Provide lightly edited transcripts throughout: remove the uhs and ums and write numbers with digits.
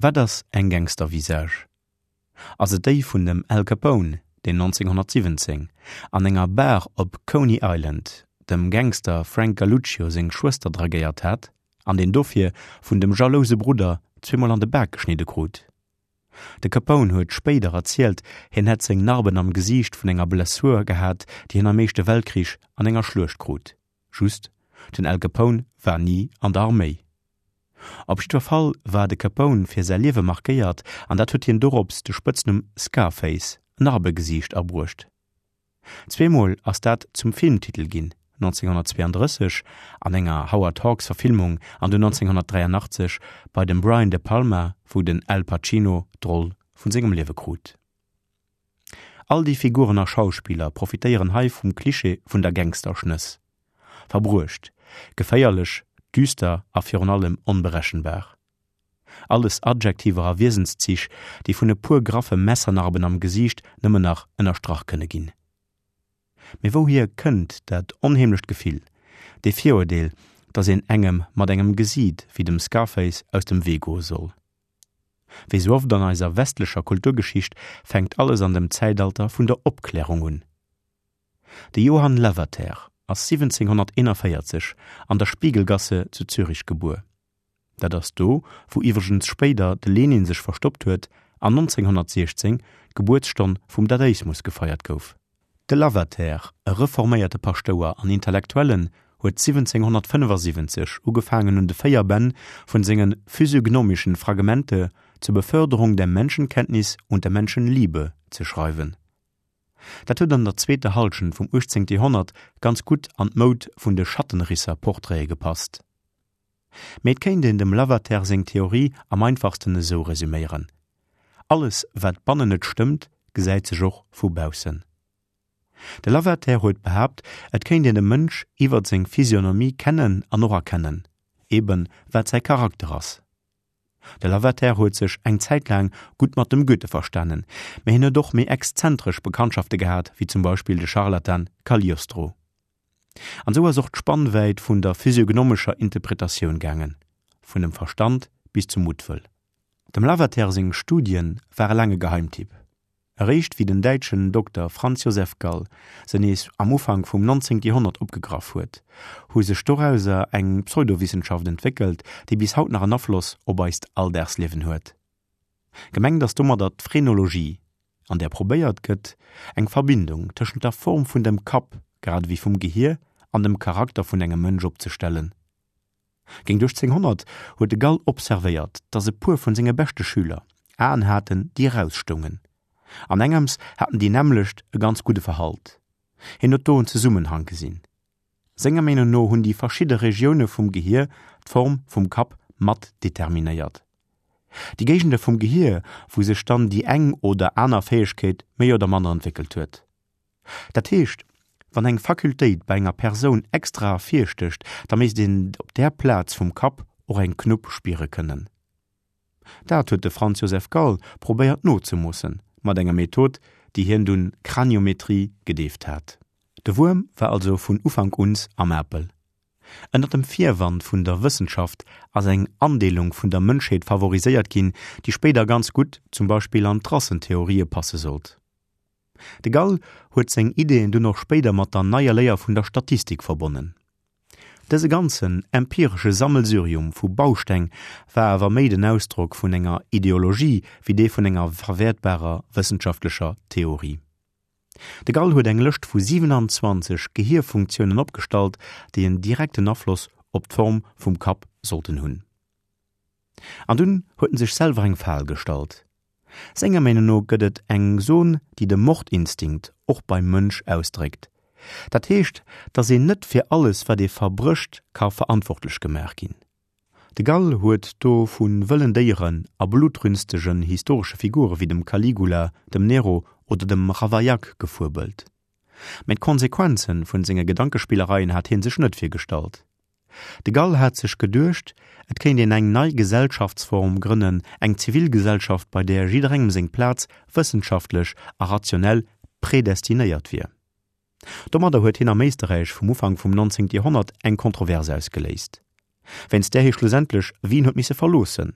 Wat ass eng Gangstervisage? Ass et déi vun dem Al Capone, deen 1917 an enger Bar op Coney Island dem Gangster Frank Galluccio seng Schwëster dragéiert hat an deen dofir vun dem jalouse Brudder zweemol an de Bak geschnidde krut? De Capone huet spéider erzielt, hien hätt seng Narben am Gesiicht vun enger Blessur gehat, déi hien am Éischte Weltkrich an enger Schluecht krut. Just, den Al Capone war ni an der Arméi. Op jiddwer Fall war de Capone fir säi Liewe markéiert an dat huet hien dorops de Spëtznumm Scarface, Narbegesiicht, abruecht. Zweemol ass dat zum Filmtitel ginn, 1932 an enger Howard Hawks Verfilmung an dunn 1983 bei dem Brian De Palma, wou den Al Pacino d'Roll vun sengem Liewe krut. All déi Figuren a Schauspiller profitéieren hei vum Klischee vun der Gangsterschnëss. Verbruecht, geféierlech, düster a virun allem onberechenbar. Alles Adjektiver a Wiesenszich, déi vun e puer graffe Messernarben am Gesiicht nëmmen nach ënnerstrach kënne ginn. Mee wouhier kënnt dat onheemlecht Gefill, dee Viruerdeel, dass een engem mat engem Gesiit wéi dem Scarface aus dem Wee goe soll? Wéi sou oft an eiser westlecher Kulturgeschicht fänkt alles an dem Zäitalter vun der Opklärung un. De Johann Lavater ass 1741 an der Spiegelgasse zu Zürich gebuer. Dat ass do, wou iwwregens spéider de Lenin sech verstoppt huet an 1916 d'Gebuertsstonn vum Dadaismus gefeiert gouf. De Lavater, e reforméierte Paschtouer an Intellektuellen, huet 1775 ugefaangen un de 4 Bänn vun senge Physiognomischen Fragmente zur Beförderung der Menschenkenntnis und der Menschenliebe ze schreiwen. Dat huet an der zweeter Hallschent vum 18. Joerhonnert ganz gutt an d'Moud vun de Schattenrisser-Portraite gepasst. Mee et kéint een dem Lavater seng Theorie am einfachsten esou resüméieren, Alles wat bannen net stëmmt, gesäit sech och vu baussen. De Lavater huet behaapt, et kéint een de Mënsch iwwert seng Physionomie kennen an och erkennen, eben wat säi Charakter ass. De Lavater huet sech eng Zäit laang gutt mat dem Goethe verstanen, mä hien huet och méi exzentresch Bekanntschafte gehat, wéi zum Beispill de Scharlatan Cagliostro. An esou ass och d'Spannwäit vun der physiognomescher Interpretatioun gaangen, vun dem Verstand bis zum Muttwëll. Dem Lavater seng Studie ware laang e Geheimtipp. Eréischt wéi den däitschen Dokter Franz Joseph Gall se nees am Ufank vum 19. Joerhonnert opgegraff huet, hu sech dorauser eng Pseudowissenschaft entwéckelt, déi bis haut nach en Afloss op eist Alldagsliewen huet. Gemengt ass domadder d'Phrenologie, an där probéiert gëtt, eng Verbindung tëschent der Form vun dem Kapp grad ewéi vum Gehier an dem Charakter vun engem Mënsch opzestellen. Géint 1800 huet de Gall observéiert, datt e puer vun senge beschte Schüler Aen haten, déi erausstoungen. An engems haten déi nämmlecht e ganz gudde Verhalt. Hien huet do en Zesummenhang gesinn. Senger Meenung no hunn déi verschidde Regioune vum Gehier d'Form vum Kapp mat determinéiert. Déi Géigende vum Gehier, wou sech dann déi eng oder aner Fäegkeet méi oder manner entwéckelt huet. Dat heescht, wann eng Fakultéit bei enger Persoun extra ervirstécht, da misst een op där Plaz vum Kapp och eng Knupp spiere kënnen. Dat huet de Franz Joseph Gall probéiert nozemoossen, mat enger Method, déi hien dunn Craniometrie gedeeft hat. De Wuerm war also vun Ufank uns am Apel. Ënner dem Virwand vun der Wëssenschaft ass eng Andeelung vun der Mënschheet favoriséiert ginn, déi spéider ganz gutt zum Beispill an d'Rassentheorië passe sollt. De Gall huet seng Ideeën dunn och spéider mat der neier Léier vun der Statistik verbonnen. Dëse ganzen empiresche Sammelsurium vu Bausteng war awer méi den Ausdrock vun enger Ideologie wéi dee vun enger verwäertbarer wëssenschaftlecher Theorie. De Gall huet eng Lëscht vu 27 Gehierfunktiounen opgestallt, déi en direkten Afloss op d'Form vum Kapp sollten hunn. An dunn huet en sech selwer eng Fal gestallt. Senger Meenung no gëtt et eng Zon, déi de Mordinstinkt och beim Mënsch ausdréckt. Dat heescht, datt een net fir alles wat ee verbrécht ka verantwortlech gemaach ginn. De Gall huet do vu wëllen Déieren a blutrünstegen historesche Figure wéi dem Caligula, dem Nero oder dem Ravaillac gefuebelt. Mä d'Konsequenze vun senge Gedankespillereien hat hie sech net virgestallt. De Gall hat sech geduecht, et kéint een eng nei Gesellschaftsform grënnen, eng Zivilgesellschaft, bei där jidderengem seng Plaz wëssenschaftlech a rationell predestinéiert wier. Domadder huet hien am Éisterräich vum Ufank vum 19. Joerhonnert eng Kontrovers ausgeléist, wéinst där hie schlussendlech Wien huet misse verloossen.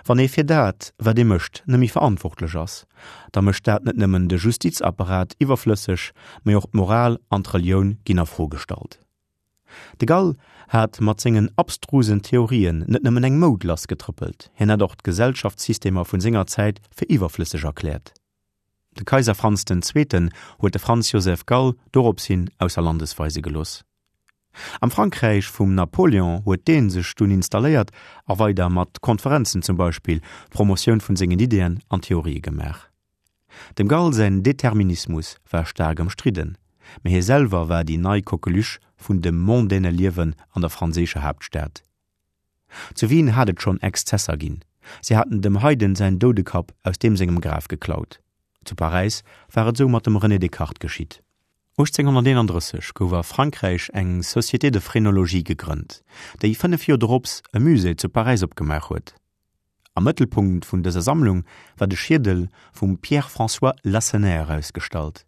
Wann ee fir dat, wat ee mécht, net méi verantwortlech ass, da mécht dat net nëmmen de Justizapparat iwwerflësseg, mee och d'Moral an d'Relioun ginn a Fro gestallt. De Gall hat mat sengen abstrusen Theorien net nëmmen eng Moud lassgetrëppelt, hien hat och d'Gesellschaftssystemer vun senger Zäit fir iwwerflësseg erkläert. De Kaiser Franz den Zweeten huet de Franz Joseph Gall dorops hin ausser Landes weise gelooss. Am Frankräich vum Napoléon huet dee sech dunn installéiert a weider mat Konferenzen zum Beispill Promotioun vun sengen Ideeën an Theorië gemaach. Dem Gall säin Determinismus war staark ëmstridden, mee hie selwer war déi nei Coqueluche vun dem mondaine Liewen an der franséischer Haaptstad. Zu Wien hat et schonn Exzesser ginn, si haten dem Haydn säin Doudekapp aus deem sengem Graf geklaut. Zu Paräis war et esou mat dem René Descartes geschitt. 1831 gouf a Frankräich eng Société de Phrénologie gegrënnt, déi 5 Joer dorops e Musée zu Paräis opgemaach huet. Am Mëttelpunkt vun dëser Sammlung war de Schiedel vum Pierre-François Lacenaire ausgestallt.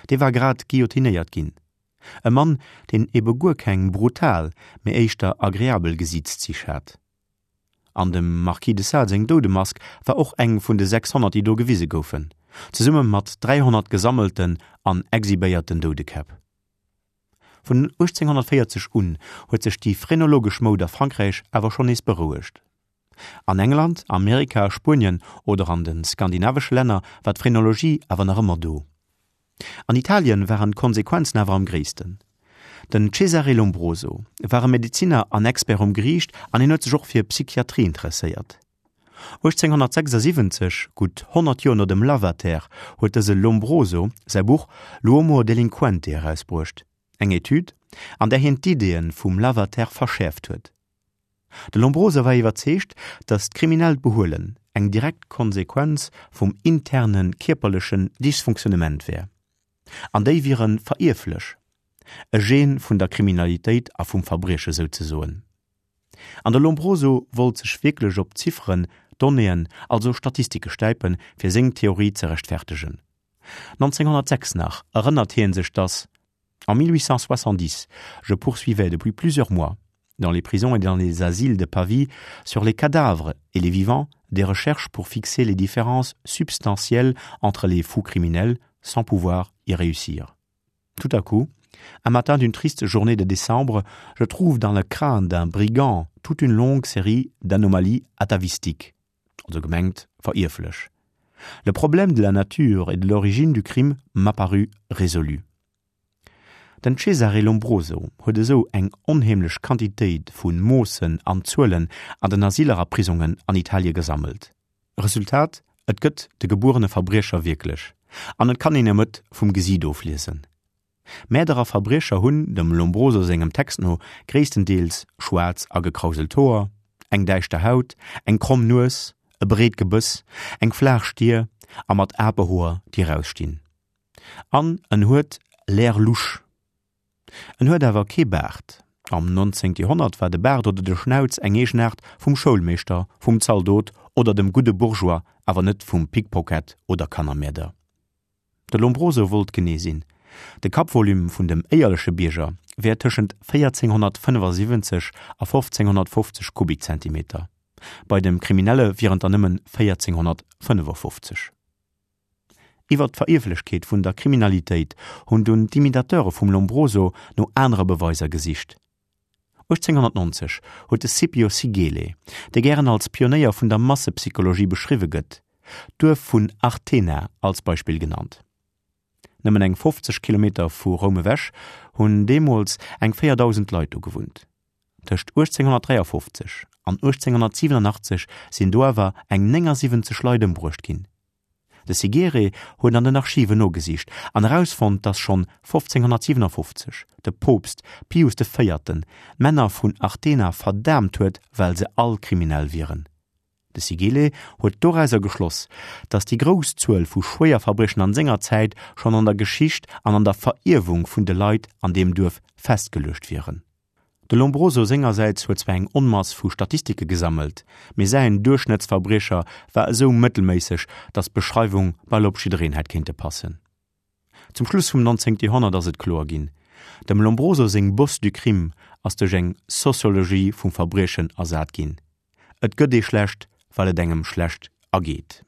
Dee war grad guillotinéiert ginn. E Mann, deen ebe guer keng brutal, mee éischter agreabel Gesiitszich hat. An dem Marquis de Sade seng Doudemask war och eng vun de 600, déi do gewise goufen, zesumme mat 300 gesammelten an exhibéierten Doudekäpp. Vun 1840 un huet sech déi phrenologesch Moud a Frankräich awer schonn nees berouegt. An England, Amerika, Spuenien oder an de skandinavesche Länner war d'Phrenologie awer nach ëmmer do. An Italien waren d'Konsequenzen awer am gréissten. Den Cesare Lombroso war e Medeziner an Expert um Geriicht an hien huet sech och fir Psychiatrie interesséiert. 1876, gutt 100 Joer no dem Lavater, huet dëse Lombroso säi Buch L'uomo delinquente erausbruecht, eng Etüd, an där hien d'Ideeë vum Lavater verschäerft huet. De Lombroso war iwwerzeegt, datt d'kriminellt Behuelen eng direkt Konsequenz vum interne kierperlechen Dysfunktionnement wär, an déi wiere verierflech, e Gen vun der Kriminalitéit a vum Verbrieche souzesoen. An de Lombroso wollt sech wierklech op Zifferen, Donnéeën, also Statistike stäipen, fir seng Theorie ze rechtfertegen. 1906 nach erënnert hie sech, datt. En 1870, je poursuivais depuis plusieurs mois, dans les prisons et dans les asiles de Pavie, sur les cadavres et les vivants, des recherches pour fixer les différences substantielles entre les fous criminels sans pouvoir y réussir. Tout à coup, un matin d'une triste journée de décembre, je trouve dans le crâne d'un brigand toute une longue série d'anomalies atavistiques also gemengt verierflech. Le problème de la nature et de l'origine du crime m'apparut résolu. Den Cesare Lombroso huet esou eng onheemlech Quantitéit vu Moossen an Zuelen an den Asyler a Prisongen an Italie gesammelt. Resultat, Et gëtt de gebuerene Verbriecher wierklech, an et kann een em et vum Gesiit ofliesen. Mäerder a Verbriecher hunn, dem Lombroso sengem Text no, gréisstendeels schwaarz a gekrauselt Hoer, eng däischter Haut, eng kromm Nues, e breet Gebëss, eng flaach Stier a mat Apehoer, déi erausstinn. An en huet l'air louche. En huet awer kee Baart. Am 19. Joerhonnert war de Baart oder de Schnauz eng Eegenaart vum Schoulmeeschter, vum Zaldot oder dem gudde Bourgeois, awer net vum Pickpocket oder Kannermäerder. De Lombroso wollt genee sinn, De Kappvolume vun dem éierleche Bierger wär tëschent 1475 a 1550 Kubikzentimeter, bei dem Kriminelle wieren et der nëmmen 1455. Iwwer d'Verierflechkeet vun der Kriminalitéit hunn dunn d'Imitateure vum Lombroso no anere Beweiser gesicht. 1890 huet de Scipio Sigele, dee gären als Pionéier vun der Massepsychologie beschriwwe gëtt, d'Duerf vun Artena als Beispill genannt. Nëmmen eng 50 Kilometer vu Roum ewech hunn deemools eng 4.000 Leit do gewunnt. Tëscht 1853 an 1887 sinn do awer eng 79 Leit ëmbruecht ginn. De Sigere huet an den Archiven nogesicht an erausfonnt, datt schonn 1557 de Poopst Pius de Véierten d'Männer vun Artena verdaamt huet, well se all kriminell wieren. De Sigele huet dorauser geschloss, datt déi grouss Zuel vu Schwéierverbriechen an senger Zäit schonn an der Geschicht an an der Verierwung vun de Leit an deem Duerf festgeluecht wieren. De Lombroso sengersäits huet zwar eng Onmass vu Statistike gesammelt, mee säin Duerchschnëttsverbriecher war esou mëttelméisseg, datt d'Beschreiwung bal op jiddereen hätt kéinte passen. Zum Schluss vum 19. Joerhonnert ass et kloer ginn, Dem Lombroso seng Bosse du crime ass duerch eng Sociologie vum Verbriechen ersat ginn. Et gëtt ee schlecht. well et engem schlecht ergeet.